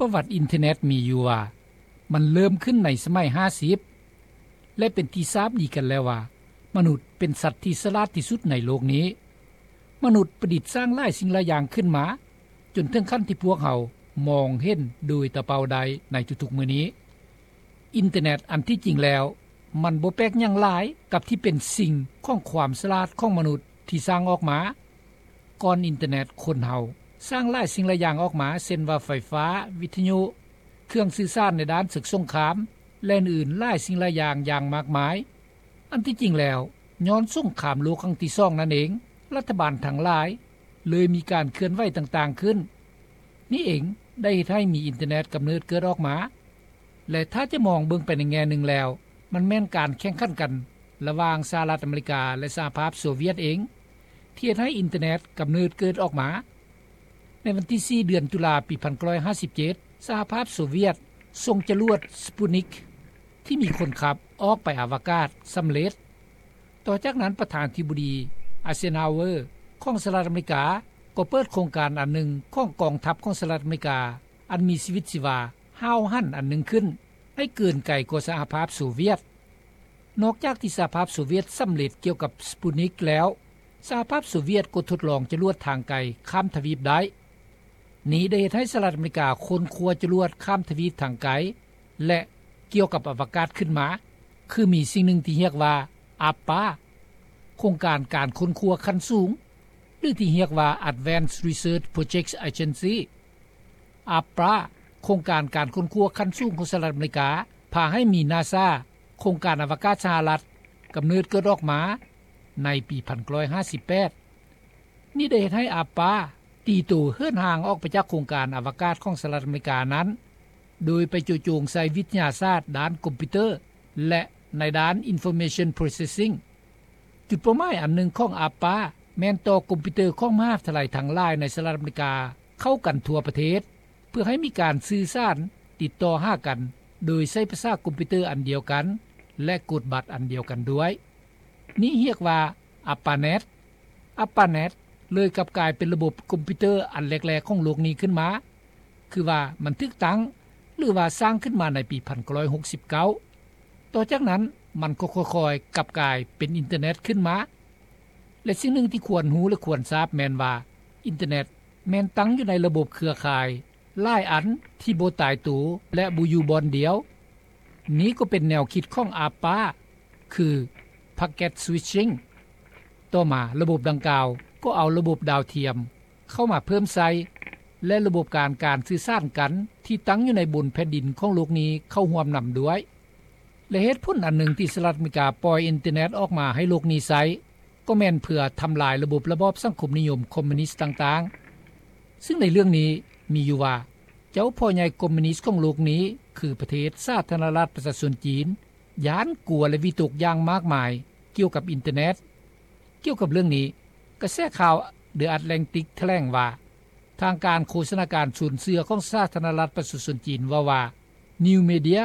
ປະຫວັດອິນເຕີເນັດມີຢູ່ວ່າ ມັນເລີ່ມຂຶ້ນໃນສະໄໝຫ້າສິບ ແລະ ເປັນທີ່ຊາບດີກັນແລ້ວວ່າ ມະນຸດເປັນສັດທີ່ສະຫຼາດທີ່ສຸດໃນໂລກນີ້. ມະນຸດປະດິດສ້າງຫຼາຍສິ່ງຫຼາຍຢ່າງຂຶ້ນມາ ຈົນເຖິງຂັ້ນທີ່ພວກເຮົາມອງເຫັນໂດຍຕາເປົ່າໄດ້ໃນທຸກໆມື້ນີ້. ອິນເຕີເນັດອັນທີ່ຈິງແລ້ວ ມັນບໍ່ແປກຫຍັງຫຼາຍກັບທີ່ເປັນສິ່ງຂອງຄວາມສະຫຼາດຂອງມະນຸດທີ່ສ້າງອອກມາ. ກ່ອນອິນເຕີເນັດ ຄົນເຮົາສ້າງຫຼາຍສິ່ງຫຼາຍຢ່າງອອກມາ ເຊັ່ນວ່າ ໄຟຟ້າ, ວິທະຍຸ, ເຄື່ອງສື່ສານໃນດ້ານເສິກສົງຄາມ ແລະ ອື່ນໆຫຼາຍສິ່ງຫຼາຍຢ່າງຢ່າງມາກມາຍ. ອັນທີ່ຈິງແລ້ວ ຍ້ອນສົງຄາມໂລກຄັ້ງທີສອງນັ້ນເອງ, ລັດຖະບານທັງຫຼາຍເລີຍມີການເຄື່ອນໄຫວຕ່າງໆຂຶ້ນ. ນີ້ເອງໄດ້ເຮັດໃຫ້ມີອິນເຕີເນັດກຳເນີດເກີດອອກມາ ແລະ ຖ້າຈະມອງເບິ່ງໄປໃນແງ່ໜຶ່ງແລ້ວ ມັນແມ່ນການແຂ່ງຂັນກັນລະຫວ່າງສະຫະລັດອາເມລິກາ ແລະ ສະຫະພາບໂຊວຽດເອງ ທີ່ເຮັດໃຫ້ອິນເຕີເນັດກຳເນີດເກີດອອກມາ. ໃນວັນທີສີ່ ເດືອນຕຸລາ ປີພັນເກົ້າຮ້ອຍຫ້າສິບເຈັດ ສະຫະພາບໂຊວຽດສົ່ງຈະຫຼວດ Sputnik ທີ່ມີຄົນຂັບອອກໄປອາວະກາດສຳເລັດ. ຕໍ່ຈາກນັ້ນ ປະທານາທິບໍດີ Eisenhower ຂອງສະຫະລັດອາເມລິກາ ກໍເປີດໂຄງການອັນໜຶ່ງຂອງກອງທັບຂອງສະຫະລັດອາເມລິກາ ອັນມີຊີວິດຊີວາຫ້າວຫັນອັນໜຶ່ງຂຶ້ນ ໃຫ້ເກີນໄກກວ່າສະຫະພາບໂຊວຽດ. ນອກຈາກທີ່ສະຫະພາບໂຊວຽດສຳເລັດກ່ຽວກັບ Sputnik ແລ້ວ, ສະຫະພາບໂຊວຽດກໍທົດລອງຈະຫຼວດທາງໄກຂ້າມທະວີບໄດ້. ນີ້ໄດ້ເຮັດໃຫ້ສະຫະລັດອາເມລິກາຄົ້ນຄວ້າຈະຫຼວດຂ້າມທະວີບທາງໄກ ແລະ ກ່ຽວກັບອະວະກາດຂຶ້ນມາ, ຄືມີສິ່ງໜຶ່ງທີ່ຮຽກວ່າ ARPA ໂຄງການການຄົ້ນຄວ້າຂັ້ນສູງ ຫຼື ທີ່ຮຽກວ່າ Advanced Research Projects Agency. ARPA ໂຄງການການຄົ້ນຄວ້າຂັ້ນສູງຂອງສະຫະລັດອາເມລິກາ ພາໃຫ້ມີ NASA ໂຄງການອະວະກາດສະຫະລັດ ກຳເນີດເກີດອອກມາໃນປີພັນເກົ້າຮ້ອຍຫ້າສິບແປດ. ນີ້ໄດ້ເຮັດໃຫ້ ARPA ຕີໂຕເຫີນຫ່າງອອກໄປຈາກໂຄງການອະວະກາດຂອງສະຫະລັດອາເມລິການັ້ນ ໂດຍໄປໂຈະໂຈງໃສ່ວິທະຍາສາດດ້ານຄອມພິວເຕີ ແລະ ໃນດ້ານ Information Processing. ຈຸດເປົ້າໝາຍອັນໜຶ່ງຂອງ ARPA ແມ່ນຕໍ່ຄອມພິວເຕີຂອງມະຫາວິທະຍາໄລທັງຫຼາຍໃນສະຫະລັດອາເມລິກາເຂົ້າກັນທົ່ວປະເທດ ເພື່ອໃຫ້ມີການສື່ສານຕິດຕໍ່ຫາກັນ ໂດຍໃຊ້ພາສາຄອມພິວເຕີອັນດຽວກັນ ແລະ ກົດບັດອັນດຽວກັນດ້ວຍ. ນີ້ຮຽກວ່າ ARPANET. ARPANET ເລີຍກັບກາຍເປັນລະບົບຄອມພິວເຕີອັນແລກໆຂອງໂລກນີ້ຂຶ້ນມາ, ຄືວ່າມັນຖືກຕັ້ງ ຫຼືວ່າສ້າງຂຶ້ນມາໃນປີພັນເກົ້າຮ້ອຍຫົກສິບເກົ້າ. ຕໍ່ຈາກນັ້ນມັນກໍຄ່ອຍໆກັບກາຍເປັນອິນເຕີເນັດຂຶ້ນມາ. ແລະ ສິ່ງໜຶ່ງທີ່ຄວນຮູ້ ແລະ ຄວນຊາບແມ່ນວ່າ ອິນເຕີເນັດແມ່ນຕັ້ງຢູ່ໃນລະບົບເຄືອຂ່າຍຫຼາຍອັນທີ່ບໍ່ຕາຍໂຕ ແລະ ບໍ່ຢູ່ບ່ອນດຽວ. ນີ້ກໍເປັນແນວຄິດຂອງ ARPA ຄື Packet Switching. ຕໍ່ມາລະບົບດັ່ງກ່າວກໍເອົາລະບົບດາວທຽມເຂົ້າມາເພີ່ມໃສ່ ແລະ ລະບົບການການສື່ສານກັນທີ່ຕັ້ງຢູ່ໃນບົນແຜ່ນດິນຂອງໂລກນີ້ເຂົ້າຮ່ວມນຳດ້ວຍ. ແລະ ເຫດຜົນອັນໜຶ່ງທີ່ສະຫະລັດອາເມລິກາປ່ອຍອິນເຕີເນັດອອກມາໃຫ້ໂລກນີ້ໃຊ້ ກໍແມ່ນເພື່ອທຳລາຍລະບົບລະບອບສັງຄົມນິຍົມຄອມມິວນິສຕ່າງໆ. ຊຶ່ງໃນເລື່ອງນີ້ມີຢູ່ວ່າ ເຈົ້າພໍ່ໃຫຍ່ຄອມມິວນິສຂອງໂລກນີ້ ຄືປະເທດສາທາລະນະລັດປະຊາຊົນຈີນ ຢ້ານກົວ ແລະ ວິຕົກຢ່າງມາກມາຍກ່ຽວກັບອິນເຕີເນັດ. ກ່ຽວກັບເລື່ອງນີ້, ກະແສຂ່າວ The Atlantic ຖະແຫຼງວ່າ ທາງການໂຄສະນາການຊົນເຊື້ອຂອງສາທາລະນະລັດປະຊາຊົນຈີນເວົ້າວ່າ New Media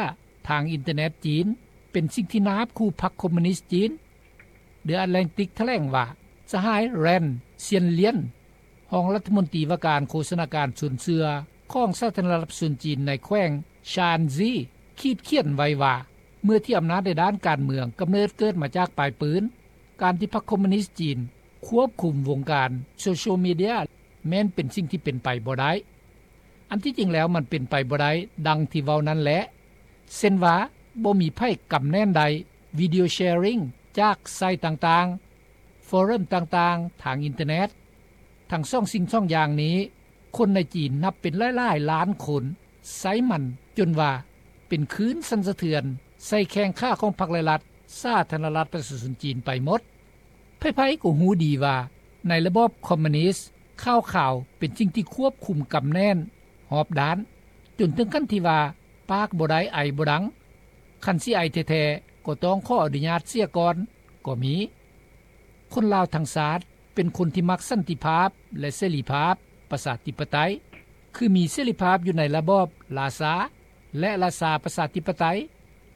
ທາງອິນເຕີເນັດຈີນ ເປັນສິ່ງທີ່ໜ້າຮັບຂູ່ພັກຄອມມິວນິສຈີນ. The Atlantic ຖະແຫຼງວ່າ ສະຫາຍ Ren Xianlian ຮອງລັດຖະມົນຕີວ່າການໂຄສະນາການຊົນເຊື້ອຂອງສາທາລະນະລັດປະຊາຊົນຈີນໃນແຂວງ Shaanxi ຂີດຂຽນໄວ້ວ່າ ເມື່ອທີ່ອຳນາດໃນດ້ານການເມືອງກຳເນີດເກີດມາຈາກປາຍປືນ, ການທີ່ພັກຄອມມິວນິສຈີນຄວບຄຸມວົງການໂຊຊຽວມີເດຍ ແມ່ນເປັນສິ່ງທີ່ເປັນໄປບໍ່ໄດ້. ອັນທີ່ຈິງແລ້ວມັນເປັນໄປບໍ່ໄດ້ດັ່ງທີ່ເວົ້ານັ້ນແຫຼະ. ເຊັ່ນວ່າ ບໍ່ມີໃຜກຳແໜ້ນໄດ້ Video Sharing ຈາກໄຊຕ່າງໆ, ຟອຣັມຕ່າງໆທາງອິນເຕີເນັດ. ທັງສອງສິ່ງສອງຢ່າງນີ້, ຄົນໃນຈີນນັບເປັນຫຼາຍໆລ້ານຄົນໃຊ້ມັນຈົນວ່າເປັນຄື້ນສັ່ນສະເທືອນໃສ່ແຂ້ງຂາຂອງພັກ ແລະ ລັດສາທາລະນະລັດປະຊາຊົນຈີນໄປໝົດ. ໃຜໆກໍຮູ້ດີວ່າໃນລະບອບຄອມມິວນິສ, ຂ່າວຂາວເປັນສິ່ງທີ່ຄວບຄຸມກຳແໜ້ນຮອບດ້ານ, ຈົນເຖິງຂັ້ນທີ່ວ່າປາກບໍ່ໄດ້ໄອບໍ່ດັງ, ຄັນຊິໄອແທ້ໆກໍຕ້ອງຂໍອະນຸຍາດເສຍກ່ອນກໍມີ. ຄົນລາວທັງຊາດເປັນຄົນທີ່ມັກສັນຕິພາບ ແລະ ເສລີພາບ, ປະຊາທິປະໄຕ, ຄືມີເສລີພາບຢູ່ໃນລະບອບລາຊາ ແລະ ລາຊາປະຊາທິປະໄຕ,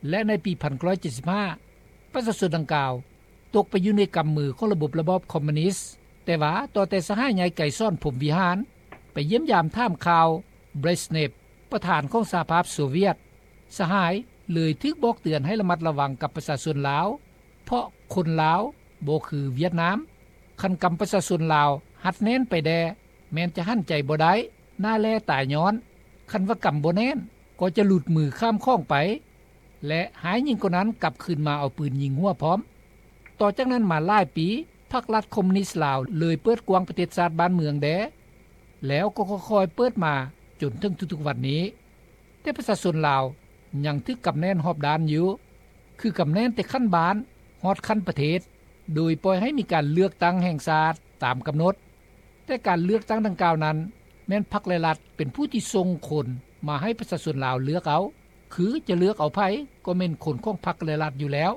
ແລະ ໃນປີພັນເກົ້າຮ້ອຍເຈັດສິບຫ້າ ປະຊາຊົນດັ່ງກ່າວຕົກໄປຢູ່ໃນກຳມືຂອງລະບົບລະບອບຄອມມິວນິສ. ແຕ່ວ່າຕໍ່ແຕ່ສະຫາຍໃຫຍ່ ໄກສອນ ພົມວິຫານ ໄປຢ້ຽມຢາມຖາມຂ່າວ Brezhnev ປະທານຂອງສະຫະພາບໂຊວຽດ ສະຫາຍເລີຍຖືກບອກເຕືອນໃຫ້ລະມັດລະວັງກັບປະຊາຊົນລາວ ເພາະຄົນລາວບໍ່ຄືຫວຽດນາມ. ຄັນກຳປະຊາຊົນລາວຮັດແໜ້ນໄປແດ່ ແມ່ນຈະຫັນໃຈບໍ່ໄດ້ ໜ້າແຫຼຕາຍ້ອນ. ຄັນວ່າກຳບໍ່ແໜ້ນ ກໍຈະຫຼຸດມືຂ້າມຂອງໄປ ແລະ ຮ້າຍຍິ່ງກວ່ານັ້ນ ກັບຄືນມາເອົາປືນຍິງຫົວພ້ອມ. ຕໍ່ຈາກນັ້ນມາຫຼາຍປີ ພັກລັດຄອມມູນິດລາວເລີຍເປີດກວ້າງປະເທດຊາດບ້ານເມືອງແດ່ ແລ້ວກໍຄ່ອຍໆເປີດມາຈົນເຖິງທຸກໆວັນນີ້. ແຕ່ປະຊາຊົນລາວຍັງຖືກກຳແໜ້ນຮອບດ້ານຢູ່ ຄືກຳແໜ້ນແຕ່ຂັ້ນບ້ານຮອດຂັ້ນປະເທດ ໂດຍປ່ອຍໃຫ້ມີການເລືອກຕັ້ງແຫ່ງຊາດຕາມກຳນົດ. ແຕ່ການເລືອກຕັ້ງດັ່ງກ່າວນັ້ນ ແມ່ນພັກ ແລະ ລັດເປັນຜູ້ທີ່ສົ່ງຄົນມາໃຫ້ປະຊາຊົນລາວເລືອກເອົາ ຄືຈະເລືອກເອົາໃຜ ກໍແມ່ນຄົນຂອງພັກ ແລະ ລັດຢູ່ແລ້ວ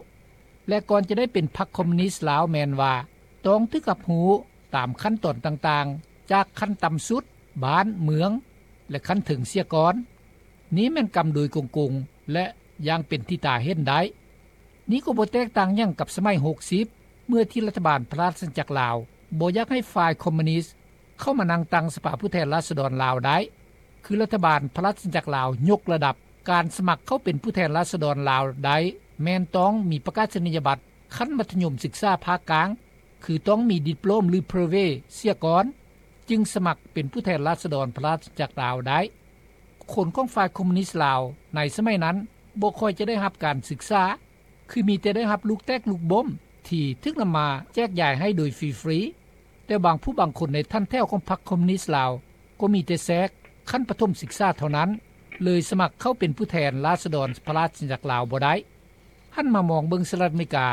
ແລະ ກ່ອນຈະໄດ້ເປັນພັກຄອມມູນິດລາວ ແມ່ນວ່າຕ້ອງຖືກຮັບຮູ້ຕາມຂັ້ນຕອນຕ່າງໆ ຈາກຂັ້ນຕ່ຳສຸດ, ບ້ານ, ເມືອງ ແລະ ຂັ້ນເທິງເສຍກ່ອນ. ນີ້ແມ່ນກຳໂດຍກົງໆ ແລະ ຢ່າງເປັນທີ່ຕາເຫັນໄດ້. ນີ້ກໍບໍ່ແຕກຕ່າງຫຍັງກັບສະໄໝຫົກສິບ ເມື່ອທີ່ລັດຖະບານພະລາຊະອານາຈັກລາວບໍ່ຢາກໃຫ້ຝ່າຍຄອມມູນິດເຂົ້າມານັ່ງຕັ້ງສະພາຜູ້ແທນລາຊະດອນລາວໄດ້ ຄືລັດຖະບານພະລາຊະອານາຈັກລາວຍົກລະດັບການສະໝັກເຂົ້າເປັນຜູ້ແທນລາຊະດອນລາວໄດ້ ແມ່ນຕ້ອງມີປະກາສະນີຍະບັດຂັ້ນມັດທະຍົມສຶກສາພາກກາງ ຄືຕ້ອງມີດິບໂປຣມ ຫຼື ເບຣເວ ເສຍກ່ອນ ຈຶ່ງສະໝັກເປັນຜູ້ແທນລາຊະດອນພະລາຊະອານາຈັກລາວໄດ້. ຄົນຂອງຝ່າຍຄອມມູນິດລາວໃນສະໄໝນັ້ນບໍ່ຄ່ອຍຈະໄດ້ຮັບການສຶກສາ ຄືມີແຕ່ໄດ້ຮັບລູກແຕກລູກບົ້ມທີ່ຖືກນຳມາແຈກຢາຍໃຫ້ໂດຍຟຣີໆ ແຕ່ບາງຜູ້ບາງຄົນໃນຖັນແຖວຂອງພັກຄອມມູນິດລາວກໍມີແຕ່ແຊກຂັ້ນປະຖົມສຶກສາເທົ່ານັ້ນ ເລີຍສະໝັກເຂົ້າເປັນຜູ້ແທນລາຊະດອນພະລາຊະອານາຈັກລາວບໍ່ໄດ້. ຫັນມາມອງເບິ່ງສະຫະລັດອາເມລິກາ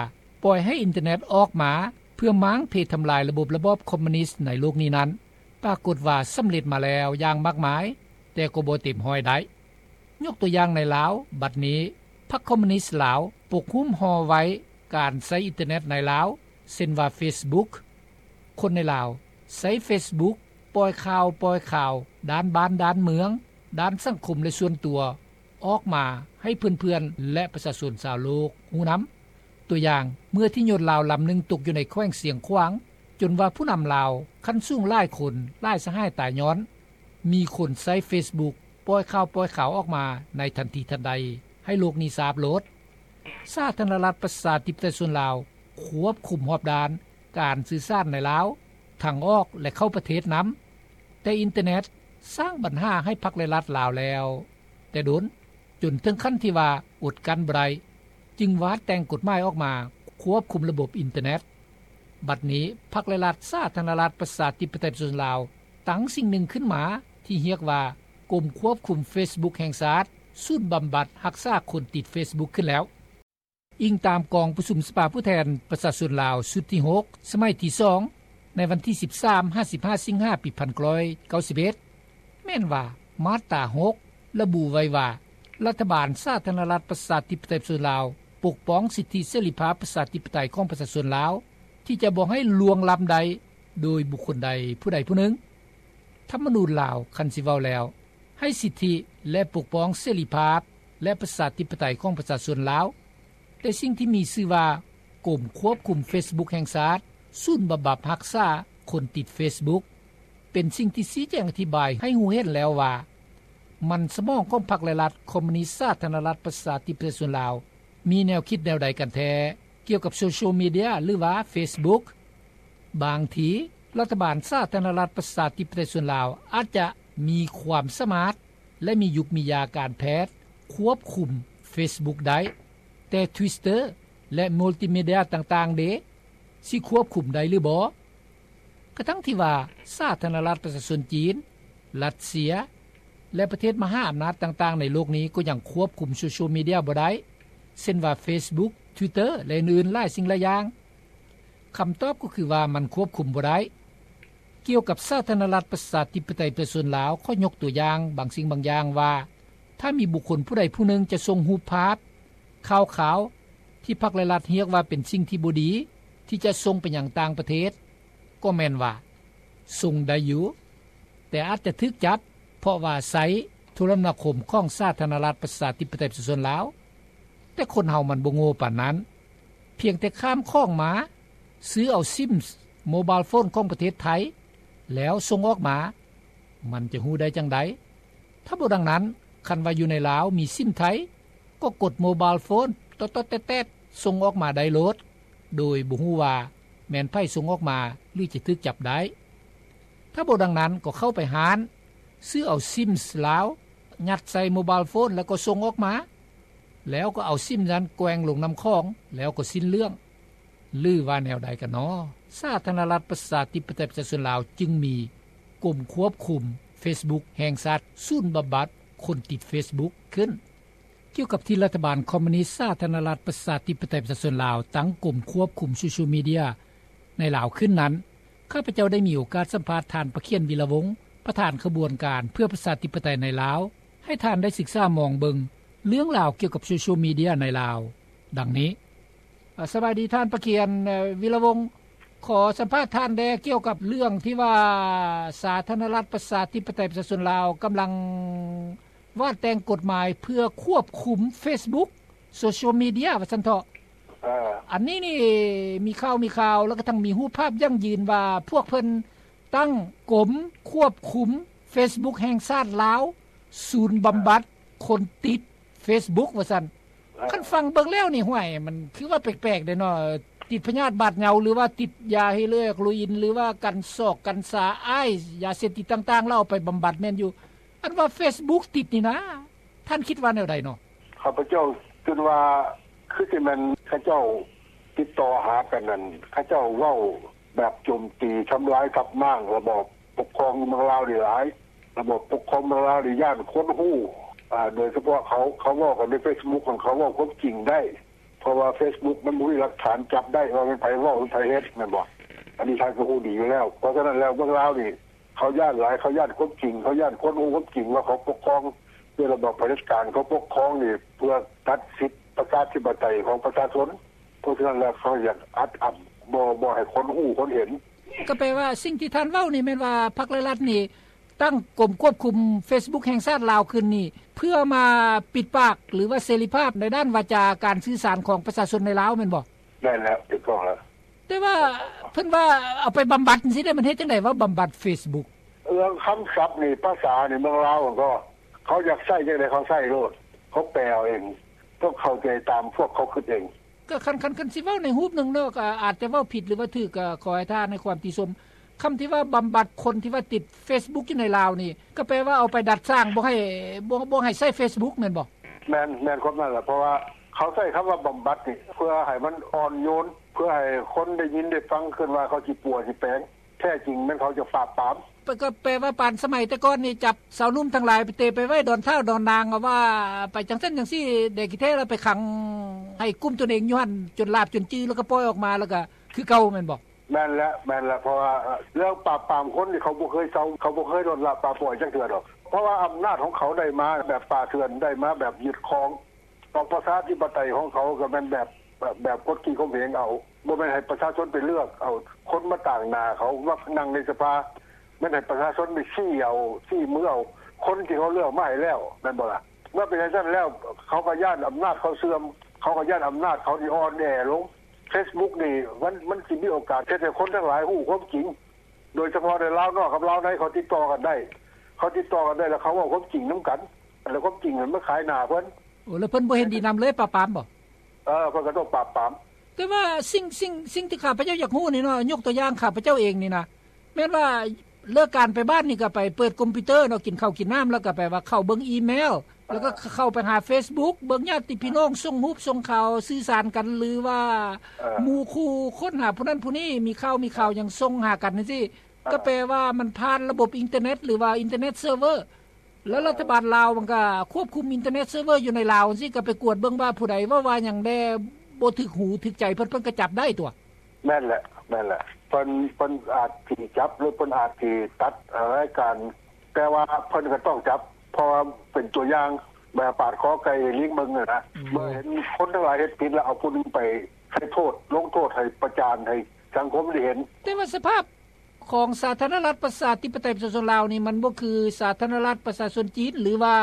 ປ່ອຍໃຫ້ອິນເຕີເນັດອອກມາເພື່ອມ້າງເພທຳລາຍລະບົບລະບອບຄອມມູນິດໃນໂລກນີ້ນັ້ນ ປາກົດວ່າສຳເລັດມາແລ້ວຢ່າງມາກມາຍ ແຕ່ກໍບໍ່ເຕັມຮ້ອຍໄດ້. ຍົກຕົວຢ່າງໃນລາວ ບັດນີ້ພັກຄອມມູນິດລາວປົກຫຸ້ມຫໍ່ໄວ້ການໃຊ້ອິນເຕີເນັດໃນລາວ ເຊັ່ນວ່າເຟສບຸກ. ຄົນໃນລາວໃຊ້ເຟສບຸກ ປ່ອຍຂ່າວ ປ່ອຍຂ່າວດ້ານບ້ານດ້ານເມືອງ ດ້ານສັງຄົມ ແລະ ສ່ວນຕົວ ອອກມາໃຫ້ເພື່ອນໆ ແລະ ປະຊາຊົນຊາວໂລກຮູ້ນຳ. ຕົວຢ່າງ ເມື່ອທີ່ຍົດລາວລຳໜຶ່ງຕົກຢູ່ໃນແຂວງຊຽງຂວາງ ຈົນວ່າຜູ້ນຳລາວຂັ້ນສູງຫຼາຍຄົນ ຫຼາຍສະຫາຍຕາຍຍ້ອນ ມີຄົນໃຊ້ເຟສບຸກປ່ອຍຂ່າວປ່ອຍຂ່າວອອກມາໃນທັນທີທັນໃດ ໃຫ້ໂລກນີ້ຊາບໂລດ. ສາທາລະນະລັດປະຊາທິປະໄຕສ່ວນລາວຄວບຄຸມຮອບດ້ານການສື່ສານໃນລາວ ທາງອອກ ແລະ ເຂົ້າປະເທດນຳ, ແຕ່ອິນເຕີເນັດສ້າງບັນຫາໃຫ້ພັກ ແລະ ລັດລາວແລ້ວແຕ່ດົນ ຈົນເຖິງຂັ້ນທີ່ວ່າອົດກັ້ນບໍ່ໄດ້ ຈຶ່ງວາດແຕ່ງກົດໝາຍອອກມາຄວບຄຸມລະບົບອິນເຕີເນັດ. ບັດນີ້ ພັກ ແລະ ລັດ ສາທາລະນະລັດ ປະຊາທິປະໄຕ ປະຊາຊົນລາວ ຕັ້ງສິ່ງໜຶ່ງຂຶ້ນມາທີ່ຮຽກວ່າ ກົມຄວບຄຸມເຟສບຸກແຫ່ງຊາດ ສູນບຳບັດຮັກສາຄົນຕິດເຟສບຸກຂຶ້ນແລ້ວ. ອີງຕາມກອງປະຊຸມສະພາຜູ້ແທນປະຊາຊົນລາວຊຸດທີຫົກ ສະໄໝທີສອງ ໃນວັນທີສິບສາມ ຫາ ສິບຫ້າ ສິງຫາ ປີພັນເກົ້າຮ້ອຍເກົ້າສິບເອັດ ແມ່ນວ່າ ມາດຕາຫົກ ລະບຸໄວ້ວ່າ ລັດຖະບານສາທາລະນະລັດ ປະຊາທິປະໄຕ ປະຊາຊົນລາວ ປົກປ້ອງສິດທິເສລີພາບປະຊາທິປະໄຕຂອງປະຊາຊົນລາວ ທີ່ຈະບໍ່ໃຫ້ລ່ວງລ້ຳໄດ້ໂດຍບຸກຄົນໃດຜູ້ໃດຜູ້ໜຶ່ງ. ທຳມະນູນລາວ ຄັນຊິເວົ້າແລ້ວ ໃຫ້ສິດທິ ແລະ ປົກປ້ອງເສລີພາບ ແລະ ປະຊາທິປະໄຕຂອງປະຊາຊົນລາວ, ແຕ່ສິ່ງທີ່ມີຊື່ວ່າ ກົມຄວບຄຸມເຟສບຸກແຫ່ງຊາດ ສູນບຳບັດຮັກສາຄົນຕິດເຟສບຸກ ເປັນສິ່ງທີ່ຊີ້ແຈງອະທິບາຍໃຫ້ຮູ້ເຫັນແລ້ວວ່າ ມັນສະໝອງຂອງພັກ ແລະ ລັດຄອມມູນິດສາທາລະນະລັດ ປະຊາທິປະໄຕ ປະຊາຊົນລາວ ມີແນວຄິດແນວໃດກັນແທ້ ກ່ຽວກັບໂຊຊຽວມີເດຍ ຫຼືວ່າເຟສບຸກ. ບາງທີ ລັດຖະບານສາທາລະນະລັດ ປະຊາທິປະໄຕ ປະຊາຊົນລາວ ອາດຈະມີຄວາມສາມາດ ແລະ ມີຍຸກມີຢາການແພດຄວບຄຸມເຟສບຸກໄດ້, ແຕ່ທວິດເຕີ ແລະ ມຸລຕິມີເດຍຕ່າງໆເດ ຊິຄວບຄຸມໄດ້ຫຼືບໍ່? ກະທັ່ງທີ່ວ່າ ສາທາລະນະລັດປະຊາຊົນຈີນ, ຣັດເຊຍ ແລະ ປະເທດມະຫາອຳນາດຕ່າງໆໃນໂລກນີ້ ກໍຍັງຄວບຄຸມໂຊຊຽວມີເດຍບໍ່ໄດ້ ເຊັ່ນວ່າເຟສບຸກ, ທວິດເຕີ ແລະ ອື່ນໆຫຼາຍສິ່ງຫຼາຍຢ່າງ. ຄຳຕອບກໍຄືວ່າ ມັນຄວບຄຸມບໍ່ໄດ້. ກ່ຽວກັບສາທາລະນະລັດປະຊາທິປະໄຕປະຊາຊົນລາວ ຂໍຍົກຕົວຢ່າງບາງສິ່ງບາງຢ່າງວ່າ ຖ້າມີບຸກຄົນຜູ້ໃດຜູ້ໜຶ່ງຈະສົ່ງຮູບພາບ, ຂ່າວຄາວ ທີ່ພັກ ແລະ ລັດຮຽກວ່າເປັນສິ່ງທີ່ບໍ່ດີ ທີ່ຈະສົ່ງໄປຍັງຕ່າງປະເທດ ກໍແມ່ນວ່າສົ່ງໄດ້ຢູ່ ແຕ່ອາດຈະຖືກຈັບ ເພາະວ່າໃຊ້ໂທລະນາຄົມຂອງສາທາລະນະລັດປະຊາທິປະໄຕປະຊາຊົນລາວ. ແຕ່ຄົນເຮົາມັນບໍ່ໂງ່ປານນັ້ນ, ພຽງແຕ່ຂ້າມຂອງມາ, ຊື້ເອົາຊິມໂມບາຍໂຟນຂອງປະເທດໄທ ແລ້ວສົ່ງອອກມາ, ມັນຈະຮູ້ໄດ້ຈັ່ງໃດ? ຖ້າບໍ່ດັ່ງນັ້ນ, ຄັນວ່າຢູ່ໃນລາວມີຊິມໄທ ກໍກົດໂມບາຍໂຟນ ຕອດໆແຕດໆ ສົ່ງອອກມາໄດ້ໂລດ ໂດຍບໍ່ຮູ້ວ່າແມ່ນໃຜສົ່ງອອກມາ ຫຼືຈະຖືກຈັບໄດ້ ຖ້າບໍ່ດັ່ງນັ້ນກໍເຂົ້າໄປຮ້ານ ຊື້ເອົາຊິມລາວ ຍັດໃສ່ໂມບາຍໂຟນ ແລ້ວກໍສົ່ງອອກມາ ແລ້ວກໍເອົາຊິມນັ້ນແກວ່ງລົງນ້ຳຂອງ ແລ້ວກໍສິ້ນເລື່ອງ ຫຼືວ່າແນວໃດກັນນໍ? ສາທາລະນະລັດ ປະຊາທິປະໄຕ ປະຊາຊົນລາວ ຈຶ່ງມີກົມຄວບຄຸມເຟສບຸກແຫ່ງຊາດ ສູນບຳບັດຄົນຕິດເຟສບຸກຂຶ້ນ. ກ່ຽວກັບທີ່ລັດຖະບານຄອມມູນິດ ສາທາລະນະລັດ ປະຊາທິປະໄຕ ປະຊາຊົນລາວ ຕັ້ງກົມຄວບຄຸມໂຊຊຽວມີເດຍໃນລາວຂຶ້ນນັ້ນ ຂ້າພະເຈົ້າໄດ້ມີໂອກາດສຳພາດທ່ານ ປະຂຽນ ວິລະວົງ ປະທານຂະບວນການເພື່ອປະຊາທິປະໄຕໃນລາວ ໃຫ້ທ່ານໄດ້ສຶກສາມອງເບິ່ງເລື່ອງລາວກ່ຽວກັບໂຊຊຽວມີເດຍໃນລາວ ດັ່ງນີ້. ສະບາຍດີທ່ານປະຂຽນ ວິລະວົງ ຂໍສຳພາດທ່ານແດ່ກ່ຽວກັບເລື່ອງທີ່ວ່າ ສາທາລະນະລັດ ປະຊາທິປະໄຕ ປະຊາຊົນລາວ ກຳລັງວາດແຕ່ງກົດໝາຍເພື່ອຄວບຄຸມເຟສບຸກ ໂຊຊຽວມີເດຍວ່າຊັ້ນເຖາະ. ອັນນີ້ນີ້ມີຂ່າວມີຂ່າວ ແລ້ວກະທັງມີຮູບພາບຢັ້ງຢືນວ່າ ພວກເພິ່ນຕັ້ງກົມຄວບຄຸມເຟສບຸກແຫ່ງຊາດລາວ ສູນບຳບັດຄົນຕິດເຟສບຸກວ່າຊັ້ນ. ຄັນຟັງເບິ່ງແລ້ວນີ້ ຫ້ວຍ ມັນຄືວ່າແປກໆເດເນາະ ຕິດພະຍາດບາດເຍົາ ຫຼືວ່າຕິດຢາເຮໂຣອີນ ຫຼືວ່າກັນຊອກກັນຊາ ໄອສ໌ ຢາເສບຕິດຕ່າງໆ ແລ້ວເອົາໄປບຳບັດແມ່ນຢູ່ ອັນວ່າເຟສບຸກຕິດນີ້ນະ ທ່ານຄິດວ່າແນວໃດເນາະ? ຂ້າພະເຈົ້າຄິດວ່າ ຄືຊິແມ່ນເຂົາເຈົ້າຕິດຕໍ່ຫາກັນນັ້ນ ເຂົາເຈົ້າເວົ້າແບບໂຈມຕີທຳລາຍທັບມ້າງລະບອບປົກຄອງຢູ່ເມືອງລາວນີ້ຫຼາຍ ລະບອບປົກຄອງເມືອງລາວນີ້ຢ້ານຄົນຮູ້ ອາ ໂດຍສະເພາະເຂົາ ເຂົາເວົ້າກັນໃນເຟສບຸກ ເຂົາເວົ້າຄວາມຈິງໄດ້ ເພາະວ່າເຟສບຸກມັນບໍ່ມີຫຼັກຖານຈັບໄດ້ວ່າແມ່ນໃຜເວົ້າ ຫຼືໃຜເຮັດ ແມ່ນບໍ່? ອັນນີ້ທ່ານກໍຮູ້ດີຢູ່ແລ້ວ ເພາະສະນັ້ນແລ້ວເມືອງລາວນີ້ ເຂົາຢ້ານຫຼາຍ ເຂົາຢ້ານຄວາມຈິງ ເຂົາຢ້ານຄົນຮູ້ຄວາມຈິງວ່າເຂົາປົກຄອງດ້ວຍລະບອບຜະເດັດການ ເຂົາປົກຄອງນີ້ເພື່ອຕັດສິດປະຊາທິປະໄຕຂອງປະຊາຊົນ ເພາະສະນັ້ນແລ້ວເຂົາຢາກອັດອັ້ນ ບໍ່ ບໍ່ໃຫ້ຄົນຮູ້ຄົນເຫັນ. ກໍແປວ່າສິ່ງທີ່ທ່ານເວົ້ານີ້ແມ່ນວ່າພັກ ແລະ ລັດນີ້ ຕັ້ງກົມຄວບຄຸມເຟສບຸກແຫ່ງຊາດລາວຂຶ້ນນີ້ ເພື່ອມາປິດປາກ ຫຼືວ່າເສລີພາບໃນດ້ານວາຈາການສື່ສານຂອງປະຊາຊົນໃນລາວແມ່ນບໍ່? ແມ່ນແລ້ວ ຖືກຕ້ອງແລ້ວ. ແຕ່ວ່າເພິ່ນວ່າເອົາໄປບຳບັດຈັ່ງຊີ້ເດ້ ມັນເຮັດຈັ່ງໃດວ່າບຳບັດເຟສບຸກ? ເລື່ອງຄຳສັບນີ້ ພາສານີ້ເມືອງລາວມັນກໍ ເຂົາຢາກໃຊ້ຈັ່ງໃດເຂົາໃຊ້ໂລດ ເຂົາແປເອົາເອງ ຕ້ອງເຂົ້າໃຈຕາມພວກເຂົາຄິດເອງ. ກໍຄັນ ຄັນ ຄັນຊິເວົ້າໃນຮູບໜຶ່ງເນາະ ກໍອາດຈະເວົ້າຜິດ ຫຼືວ່າຖືກ ກໍຂໍໃຫ້ທ່ານໃຫ້ຄວາມຕິຊົມ. ຄຳທີ່ວ່າບຳບັດຄົນທີ່ວ່າຕິດເຟສບຸກຢູ່ໃນລາວນີ້ ກໍແປວ່າເອົາໄປດັດສ້າງ ບໍ່ໃຫ້ ບໍ່ ບໍ່ໃຫ້ໃຊ້ເຟສບຸກແມ່ນບໍ່? ແມ່ນ ແມ່ນຄວາມນັ້ນແຫຼະ ເພາະວ່າເຂົາໃຊ້ຄຳວ່າບຳບັດນີ້ ເພື່ອໃຫ້ມັນອ່ອນໂຍນ ເພື່ອໃຫ້ຄົນໄດ້ຍິນໄດ້ຟັງຂຶ້ນວ່າເຂົາຊິປົວຊິແປງ ແທ້ຈິງແມ່ນເຂົາຈະປາບປາມ. ກໍແປວ່າປານສະໄໝແຕ່ກ່ອນນີ້ ຈັບຊາວໜຸ່ມທັງຫຼາຍໄປເຕະໄປໄວ້ດອນທ້າວດອນນາງ ວ່າໄປຈັ່ງຊັ້ນຈັ່ງຊີ້ ແດ່ຂີ້ແທ້ແລ້ວໄປຂັງໃຫ້ກຸ້ມຕົນເອງຢູ່ຫັ້ນ ຈົນຫຼາບຈົນຈື່ ແລ້ວກໍປ່ອຍອອກມາ ແລ້ວກໍຄືເກົ່າແມ່ນບໍ່? ແມ່ນແຫຼະ ແມ່ນແຫຼະ ເພາະວ່າເລື່ອງປາບປາມຄົນນີ້ ເຂົາບໍ່ເຄີຍເຊົາ ເຂົາບໍ່ເຄີຍລົດລະປາປ່ອຍຈັກເທື່ອດອກ ເພາະວ່າອຳນາດຂອງເຂົາໄດ້ມາແບບປ່າເຖື່ອນ ໄດ້ມາແບບຍຶດຄອງ ລະປະຊາທິປະໄຕຂອງເຂົາກໍແມ່ນແບບ ແບບ ແບບກົດຂີ່ຂົ່ມເຫງເອົາ ບໍ່ແມ່ນໃຫ້ປະຊາຊົນໄປເລືອກເອົາຄົນມາຕາງໜ້າເຂົາ ມານັ່ງໃນສະພາ ແມ່ນໃຫ້ປະຊາຊົນໄປຊີ້ເອົາ ຊີ້ມືເອົາຄົນທີ່ເຂົາເລືອກມາໃຫ້ແລ້ວ ແມ່ນບໍ່ລະ? ເມື່ອເປັນຈັ່ງຊັ້ນແລ້ວ ເຂົາກໍຢ້ານອຳນາດເຂົາເສື່ອມ ເຂົາກໍຢ້ານອຳນາດເຂົານີ້ອ່ອນແອລົງ. ເຟສບຸກນີ້ ມັນ ມັນຊິມີໂອກາດເຮັດໃຫ້ຄົນທັງຫຼາຍຮູ້ຄວາມຈິງ ໂດຍສະເພາະໃນລາວນອກກັບລາວໃນ ເຂົາຕິດຕໍ່ກັນໄດ້ ເຂົາຕິດຕໍ່ກັນໄດ້ ແລ້ວເຂົາເວົ້າຄວາມຈິງນຳກັນ ແລ້ວຄວາມຈິງນັ້ນມາຂາຍໜ້າເພິ່ນ. ໂອ້ ແລ້ວເພິ່ນບໍ່ເຫັນດີນຳເລີຍປາບປາມບໍ່? ເອີ ເພິ່ນກໍຕ້ອງປາບປາມ. ແຕ່ວ່າສິ່ງ ສິ່ງ ສິ່ງທີ່ຂ້າພະເຈົ້າຢາກຮູ້ນີ້ເນາະ ຍົກຕົວຢ່າງຂ້າພະເຈົ້າເອງນີ້ນະ ແມ່ນວ່າເລີກການໄປບ້ານນີ້ກໍໄປເປີດຄອມພິວເຕີເນາະ ກິນເຂົ້າກິນນ້ຳ ແລ້ວກໍແປວ່າເຂົ້າເບິ່ງອີເມວ ແລ້ວກໍເຂົ້າໄປຫາເຟສບຸກ ເບິ່ງຍາດຕິພີ່ນ້ອງສົ່ງຮູບສົ່ງຂ່າວສື່ສານກັນ ຫຼືວ່າ ເອີ ໝູ່ຄູ່ຄົ້ນຫາຜູ້ນັ້ນຜູ້ນີ້ ມີຂ່າວມີຂ່າວຫຍັງສົ່ງຫາກັນຈັ່ງຊີ້ ກໍແປວ່າມັນຜ່ານລະບົບອິນເຕີເນັດ ຫຼືວ່າອິນເຕີເນັດເຊີເວີ ແລ້ວລັດຖະບານລາວມັນກໍຄວບຄຸມອິນເຕີເນັດເຊີເວີຢູ່ໃນລາວຈັ່ງຊີ້ ກໍໄປກວດເບິ່ງວ່າຜູ້ໃດເວົ້າວ່າຫຍັງແດ່ ບໍ່ຖືກຫູຖືກໃຈເພິ່ນ ເພິ່ນກໍຈັບໄດ້ຕົວະ. ແມ່ນແຫຼະ ແມ່ນແຫຼະ ເພິ່ນ ເພິ່ນອາດຊິຈັບ ຫຼືເພິ່ນອາດຊິຕັດລາຍການ ແຕ່ວ່າເພິ່ນກໍຕ້ອງຈັບ ເພາະວ່າເປັນຕົວຢ່າງ ແບບປາດຄໍໄກ່ໃຫ້ລີງເບິ່ງຫັ້ນນະ ເມື່ອເຫັນຄົນທັງຫຼາຍເຮັດຜິດແລ້ວ ເອົາຜູ້ໜຶ່ງໄປໃຫ້ໂທດ ລົງໂທດ ໃຫ້ປະຈານ ໃຫ້ສັງຄົມໄດ້ເຫັນ. ແຕ່ວ່າສະພາບ ຂອງສາທາລະນະລັດ ປະຊາທິປະໄຕ ປະຊາຊົນລາວນີ້ ມັນບໍ່ຄືສາທາລະນະລັດ ປະຊາຊົນຈີນ ຫຼືວ່າ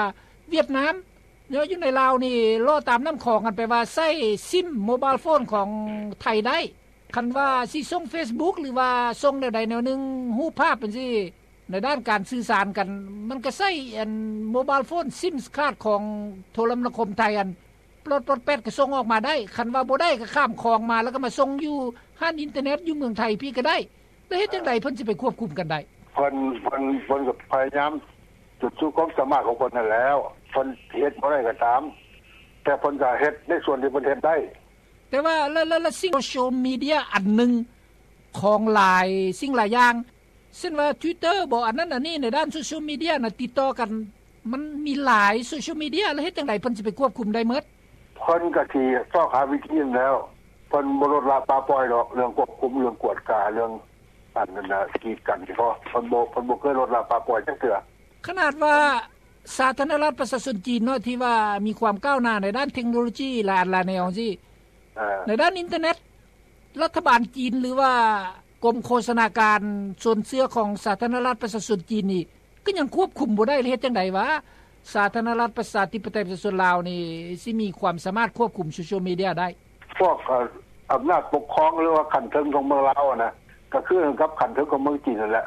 ຫວຽດນາມເນາະ ຢູ່ໃນລາວນີ້ ເລາະຕາມນ້ຳຂອງ ອັນແປວ່າໃຊ້ຊິມໂມບາຍໂຟນຂອງໄທໄດ້ ຄັນວ່າຊິສົ່ງເຟສບຸກ ຫຼືວ່າສົ່ງແນວໃດແນວໜຶ່ງ ຮູບພາບຈັ່ງຊີ້ ໃນດ້ານການສື່ສານກັນ ມັນກໍໃຊ້ອັນໂມບາຍໂຟນ ຊິມຄາດຂອງໂທລະມະນາຄົມໄທ ອັນປອດໆແປດກໍສົ່ງອອກມາໄດ້ ຄັນວ່າບໍ່ໄດ້ກໍຂ້າມຂອງມາ ແລ້ວກໍມາສົ່ງຢູ່ຮ້ານອິນເຕີເນັດຢູ່ເມືອງໄທພີ້ກໍໄດ້. ແລ້ວເຮັດຈັ່ງໃດເພິ່ນຊິໄປຄວບຄຸມກັນໄດ້? ເພິ່ນ ເພິ່ນ ເພິ່ນກໍພະຍາຍາມສຸດຄວາມສາມາດຂອງເພິ່ນນັ້ນແຫຼ້ວ ເພິ່ນເຮັດບໍ່ໄດ້ກໍຕາມ ແຕ່ເພິ່ນກໍເຮັດໃນສ່ວນທີ່ເພິ່ນເຮັດໄດ້. ແຕ່ວ່າ ແລ້ວ ແລ້ວ ແລ້ວສິ່ງໂຊຊຽວມີເດຍອັນໜຶ່ງຂອງຫຼາຍສິ່ງຫຼາຍຢ່າງ ເຊັ່ນວ່າ Twitter ບໍ ອັນນັ້ນອັນນີ້ ໃນດ້ານໂຊຊຽວມີເດຍນະ ຕິດຕໍ່ກັນ ມັນມີຫຼາຍໂຊຊຽວມີເດຍ ແລ້ວເຮັດຈັ່ງໃດເພິ່ນຊິໄປຄວບຄຸມໄດ້ໝົດ? ເພິ່ນກໍຊິຊອກຫາວິທີນັ້ນແຫຼ້ວ ເພິ່ນບໍ່ລົດລະປະປ່ອຍດອກ ເລື່ອງຄວບຄຸມ ເລື່ອງກວດກາ ເລື່ອງອັນນັ້ນນະ ກີດກັນ ເພາະເພິ່ນບໍ່ ເພິ່ນບໍ່ເຄີຍລົດລະປະປ່ອຍຈັກເທື່ອ. ຂະໜາດວ່າສາທາລະນະລັດປະຊາຊົນຈີນເນາະ ທີ່ວ່າມີຄວາມກ້າວໜ້າໃນດ້ານເທັກໂນໂລຈີຫຼາຍອັນຫຼາຍແນວຈັ່ງຊີ້ ເອີ ໃນດ້ານອິນເຕີເນັດ ລັດຖະບານຈີນ ຫຼືວ່າກົມໂຄສະນາການຊົນເຊື້ອຂອງສາທາລະນະລັດປະຊາຊົນຈີນນີ້ ກໍຍັງຄວບຄຸມບໍ່ໄດ້ ແລ້ວເຮັດຈັ່ງໃດວ່າສາທາລະນະລັດປະຊາທິປະໄຕປະຊາຊົນລາວນີ້ ຊິມີຄວາມສາມາດຄວບຄຸມໂຊຊຽວມີເດຍໄດ້? ພວກ ເອີ ອຳນາດປົກຄອງ ຫຼືວ່າຂັ້ນເທິງຂອງເມືອງລາວຫັ້ນນະ ກໍຄືກັນກັບຂັ້ນເທິງຂອງເມືອງຈີນນັ້ນແຫຼະ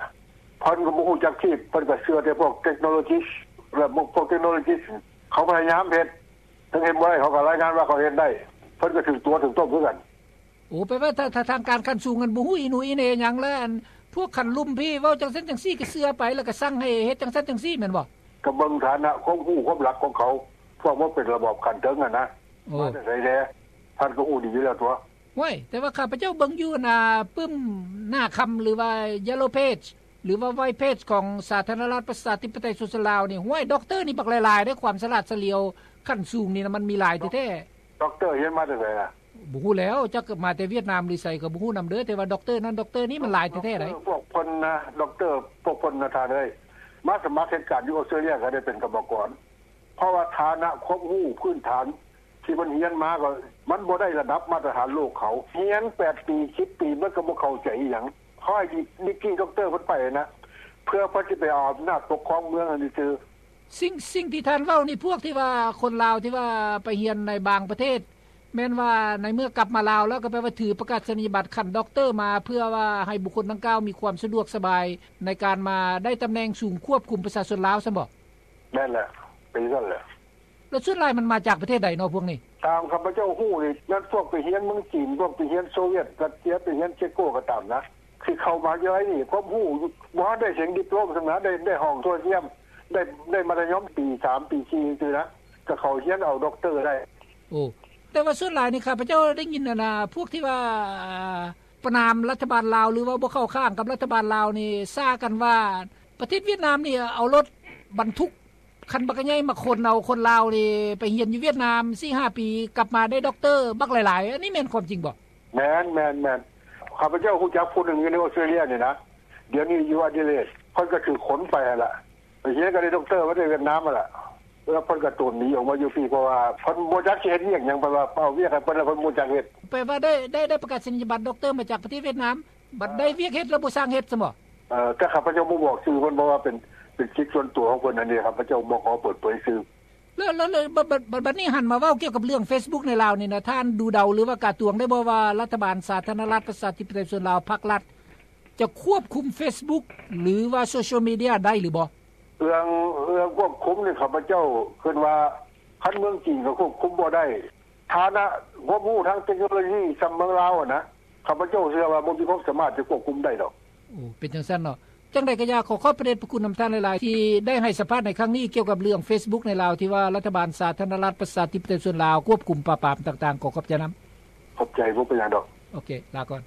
ເພິ່ນກໍບໍ່ຮູ້ຈັກທີ່ ເພິ່ນກໍເຊື່ອແຕ່ພວກເທັກໂນໂລຈີ ແລະ ພວກເທັກໂນໂລຈີ ເຂົາພະຍາຍາມເຮັດ ເຖິງເຮັດບໍ່ໄດ້ ເຂົາກໍລາຍງານວ່າເຂົາເຮັດໄດ້ ເພິ່ນກໍຖືກຕົວະຖືກຕົ້ມຄືກັນ. ໂອ້ ແປວ່າ ຖ້າ ຖ້າທາງການຂັ້ນສູງຫັ້ນບໍ່ຮູ້ອີ່ໜູອີ່ເໜີຫຍັງ ແລ້ວອັນພວກຂັ້ນລຸ່ມພີ້ເວົ້າຈັ່ງຊັ້ນຈັ່ງຊີ້ ກໍເຊື່ອໄປ ແລ້ວກໍສັ່ງໃຫ້ເຮັດຈັ່ງຊັ້ນຈັ່ງຊີ້ ແມ່ນບໍ່? ກໍເບິ່ງຖານະຄວາມຮູ້ຄວາມຫຼັກຂອງເຂົາ ພວກມັນເປັນລະບອບຂັ້ນເທິງຫັ້ນນະ ໂອ້ ມາແຕ່ໃສແດ່ ທ່ານກໍຮູ້ດີຢູ່ແລ້ວຕົວະ. ໂອ້ຍ ແຕ່ວ່າຂ້າພະເຈົ້າເບິ່ງຢູ່ ອັນ ອ່າ ປຶ້ມໜ້າຄຳ ຫຼືວ່າ Yellow Page ຫຼືວ່າ White Page ຂອງສາທາລະນະລັດປະຊາທິປະໄຕປະຊາຊົນລາວນີ້ ໂອ້ຍ ດັອກເຕີນີ້ບັກຫຼາຍໆເດ້ ຄວາມສະຫຼາດສະຫຼຽວຂັ້ນສູງນີ້ນະ ມັນມີຫຼາຍແທ້ໆ. ດັອກເຕີຮຽນມາແຕ່ໃສລະ? ບໍ່ຮູ້ແລ້ວ ຈັກມາແຕ່ຫວຽດນາມຫຼືໃສກໍບໍ່ຮູ້ນຳເດີ ແຕ່ວ່າດັອກເຕີນັ້ນດັອກເຕີນີ້ມັນຫຼາຍແທ້ໆໃດ໋. ດັອກເຕີພວກເພິ່ນນະ ດັອກເຕີພວກເພິ່ນນະທ່ານເອີຍ ມາສະໝັກເຮັດການຢູ່ອົດສະຕຣາເລຍກໍໄດ້ເປັນກຳມະກອນ ເພາະວ່າຖານະຄວາມຮູ້ພື້ນຖານທີ່ມັນຮຽນມາກໍມັນບໍ່ໄດ້ລະດັບມາດຕະຖານໂລກເຂົາ ຮຽນແປດປີ ສິບປີ ມັນກໍບໍ່ເຂົ້າໃຈອີ່ຫຍັງ ເຂົາໃຫ້ດີກຣີດັອກເຕີເພິ່ນໄປນະ ເພື່ອເພິ່ນຊິໄປເອົາອຳນາດປົກຄອງເມືອງຫັ້ນຊື່ໆ. ສິ່ງ ສິ່ງທີ່ທ່ານເວົ້ານີ້ ພວກທີ່ວ່າຄົນລາວທີ່ວ່າໄປຮຽນໃນບາງປະເທດ ແມ່ນວ່າໃນເມື່ອກັບມາລາວແລ້ວ ກໍແປວ່າຖືປະກາສະນີຍະບັດຂັ້ນດັອກເຕີມາ ເພື່ອວ່າໃຫ້ບຸກຄົນດັ່ງກ່າວມີຄວາມສະດວກສະບາຍໃນການມາໄດ້ຕຳແໜ່ງສູງຄວບຄຸມປະຊາຊົນລາວຊັ້ນບໍ? ແມ່ນແຫຼະ ເປັນຊັ້ນແຫຼະ. ແລ້ວສ່ວນຫຼາຍມັນມາຈາກປະເທດໃດເນາະພວກນີ້? ຕາມຂ້າພະເຈົ້າຮູ້ນີ້ ແມ່ນພວກໄປຮຽນເມືອງຈີນ ພວກໄປຮຽນໂຊວຽດຣັດເຊຍ ໄປຮຽນເຊໂກກໍຕາມນະ ທີ່ເຂົ້າມະຫາວິທະຍາໄລນີ້ ຄວາມຮູ້ບໍ່ທັນໄດ້ເຖິງດິບໂລມຊ້ຳນະ ໄດ້ ໄດ້ຫ້ອງໂທລະທຽມ ໄດ້ ໄດ້ມັດທະຍົມປີສາມ ປີສີ່ ຈັ່ງຊີ້ນະ ກໍເຂົ້າຮຽນເອົາດັອກເຕີໄດ້. ໂອ້ ແຕ່ວ່າສ່ວນຫຼາຍນີ້ ຂ້າພະເຈົ້າໄດ້ຍິນ ອັນນ່າ ພວກທີ່ວ່າປະນາມລັດຖະບານລາວ ຫຼືວ່າບໍ່ເຂົ້າຂ້າງກັບລັດຖະບານລາວນີ້ ສາກັນວ່າປະເທດຫວຽດນາມນີ້ເອົາລົດບັນທຸກ ຄັນບັກໃຫຍ່ມາຂົນເອົາຄົນລາວນີ້ໄປຮຽນຢູ່ຫວຽດນາມສີ່ຫ້າປີ ກັບມາໄດ້ດັອກເຕີບັກຫຼາຍໆ ອັນນີ້ແມ່ນຄວາມຈິງບໍ່? ແມ່ນໆໆ ຂ້າພະເຈົ້າຮູ້ຈັກຜູ້ໜຶ່ງຢູ່ໃນອົດສະຕຣາເລຍນີ້ນະ ດຽວນີ້ຢູ່ອະດີເລດ ເພິ່ນກໍຖືກຂົນໄປຫັ້ນລະ ໄປຮຽນກໍໄດ້ດັອກເຕີມາແຕ່ຫວຽດນາມຫັ້ນລະ ແລ້ວເພິ່ນກໍໂຕນໜີອອກມາຢູ່ພີ້ ເພາະວ່າເພິ່ນບໍ່ຈັກຊິເຮັດວຽກຫຍັງ ເພິ່ນວ່າເອົາວຽກໃຫ້ເພິ່ນແລ້ວເພິ່ນບໍ່ຈັກເຮັດ. ແປວ່າໄດ້ ໄດ້ ໄດ້ປະກາສະນີຍະບັດດັອກເຕີມາຈາກປະເທດຫວຽດນາມ ບັດໄດ້ວຽກເຮັດແລ້ວບໍ່ຊ່າງເຮັດຊັ້ນບໍ? ເອີ ແຕ່ຂ້າພະເຈົ້າບໍ່ບອກຊື່ເພິ່ນ ເພາະວ່າເປັນ ເປັນສິດສ່ວນຕົວຂອງເພິ່ນ ອັນນີ້ຂ້າພະເຈົ້າບໍ່ຂໍເປີດເຜີຍຊື່. ແລ້ວ ແລ້ວ ແລ້ວ ບັດ ບັດ ບັດ ບັດນີ້ຫັນມາເວົ້າກ່ຽວກັບເລື່ອງເຟສບຸກໃນລາວນີ້ນະ ທ່ານດູເດົາ ຫຼືວ່າກາຕວງໄດ້ບໍ່ວ່າລັດຖະບານສາທາລະນະລັດປະຊາທິປະໄຕປະຊາຊົນລາວ ພັກລັດ ຈະຄວບຄຸມເຟສບຸກ ຫຼືວ່າໂຊຊຽວມີເດຍໄດ້ຫຼືບໍ່? ເລື່ອງ ເລື່ອງຄວບຄຸມນີ້ ຂ້າພະເຈົ້າຄິດວ່າ ຄັນເມືອງຈີນກໍຄວບຄຸມບໍ່ໄດ້ ຖານະຄວາມຮູ້ທາງເຕັກໂນໂລຊີສ່ຳເມືອງລາວຫັ້ນນະ ຂ້າພະເຈົ້າເຊື່ອວ່າບໍ່ມີຄວາມສາມາດຈະຄວບຄຸມໄດ້ດອກ. ໂອ້ ເປັນຈັ່ງຊັ້ນເນາະ. ຈັ່ງໃດກໍຢ່າ ຂໍຂອບພະເດດພະຄຸນນຳທ່ານຫຼາຍໆ ທີ່ໄດ້ໃຫ້ສຳພາດໃນຄັ້ງນີ້ ກ່ຽວກັບເລື່ອງເຟສບຸກໃນລາວ ທີ່ວ່າລັດຖະບານສາທາລະນະລັດປະຊາທິປະໄຕປະຊາຊົນລາວ ຄວບຄຸມປາບປາມຕ່າງໆ. ຂໍຂອບໃຈນຳ. ຂອບໃຈ ບໍ່ເປັນຫຍັງດອກ. ໂອເຄ ລາກ່ອນ.